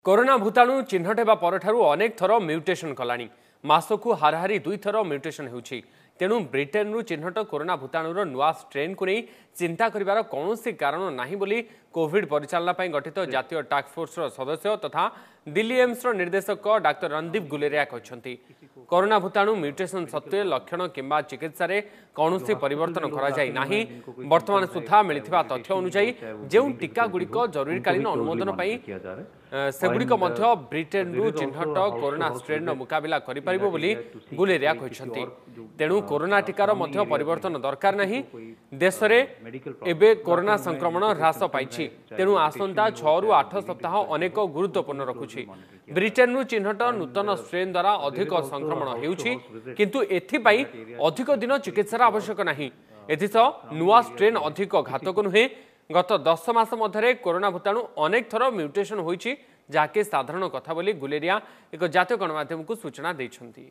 Corona ଭୂତାଣୁ ଚିହ୍ନଟ ହେବା ପରଠାରୁ ଅନେକ ଥର ମ୍ୟୁଟେସନ୍ କଲାଣି। ମାସକୁ ହାରାହାରି 2 ଥର ମ୍ୟୁଟେସନ୍ ହେଉଛି। ତେଣୁ ବ୍ରିଟେନରୁ ଚିହ୍ନଟ କରୋନା ଭୂତାଣୁର ନୂଆ ଷ୍ଟ୍ରେନ୍କୁ ନେଇ ଚିନ୍ତା କରିବାର କୌଣସି କାରଣ ନାହିଁ ବୋଲି କୋଭିଡ୍ ପରିଚାଳନା ପାଇଁ ଗଠିତ ଜାତୀୟ ଟାସ୍କଫୋର୍ସର ସଦସ୍ୟ ତଥା ଦିଲ୍ଲୀ ଏମ୍ସର ନିର୍ଦ୍ଦେଶକ ଡାକ୍ତର ରଣଦୀପ ଗୁଲେରିଆ କହିଛନ୍ତି। କରୋନା ଭୂତାଣୁ ମ୍ୟୁଟେସନ୍ ସତ୍ତ୍ୱେ ଲକ୍ଷଣ କିମ୍ବା ଚିକିତ୍ସାରେ କୌଣସି ପରିବର୍ତ୍ତନ କରାଯାଇ ନାହିଁ। ବର୍ତ୍ତମାନ ସୁଦ୍ଧା ମିଳିଥିବା ତଥ୍ୟ ଅନୁଯାୟୀ ଯେଉଁ ଟିକାଗୁଡ଼ିକ ଜରୁରୀକାଳୀନ ଅନୁମୋଦନ ପାଇଁ, ସେଗୁଡ଼ିକ ମଧ୍ୟ ବ୍ରିଟେନରୁ ଚିହ୍ନଟ କରୋନା ଷ୍ଟ୍ରେନ୍ର ମୁକାବିଲା କରିପାରିବ ବୋଲି ଗୁଲେରିଆ କହିଛନ୍ତି। ତେଣୁ କରୋନା ଟିକାର ମଧ୍ୟ ପରିବର୍ତ୍ତନ ଦରକାର ନାହିଁ। ଦେଶରେ ଏବେ କରୋନା ସଂକ୍ରମଣ ହ୍ରାସ ପାଇଛି। ତେଣୁ ଆସନ୍ତା 6ରୁ 8 ସପ୍ତାହ ଅନେକ ଗୁରୁତ୍ୱପୂର୍ଣ୍ଣ ରଖୁଛି। ବ୍ରିଟେନରୁ ଚିହ୍ନଟ ନୂତନ ଷ୍ଟ୍ରେନ୍ ଦ୍ୱାରା ଅଧିକ ସଂକ୍ରମଣ ହେଉଛି, କିନ୍ତୁ ଏଥିପାଇଁ ଅଧିକ ଦିନ ଚିକିତ୍ସାର ଆବଶ୍ୟକ ନାହିଁ। ଏଥିସହ ନୂଆ ଷ୍ଟ୍ରେନ୍ ଅଧିକ ଘାତକ ନୁହେଁ। ଗତ 10 ମାସ ମଧ୍ୟରେ କରୋନା ଭୂତାଣୁ ଅନେକ ଥର ମ୍ୟୁଟେସନ୍ ହୋଇଛି, ଯାହାକି ସାଧାରଣ କଥା ବୋଲି ଗୁଲେରିଆ ଏକ ଜାତୀୟ ଗଣମାଧ୍ୟମକୁ ସୂଚନା ଦେଇଛନ୍ତି।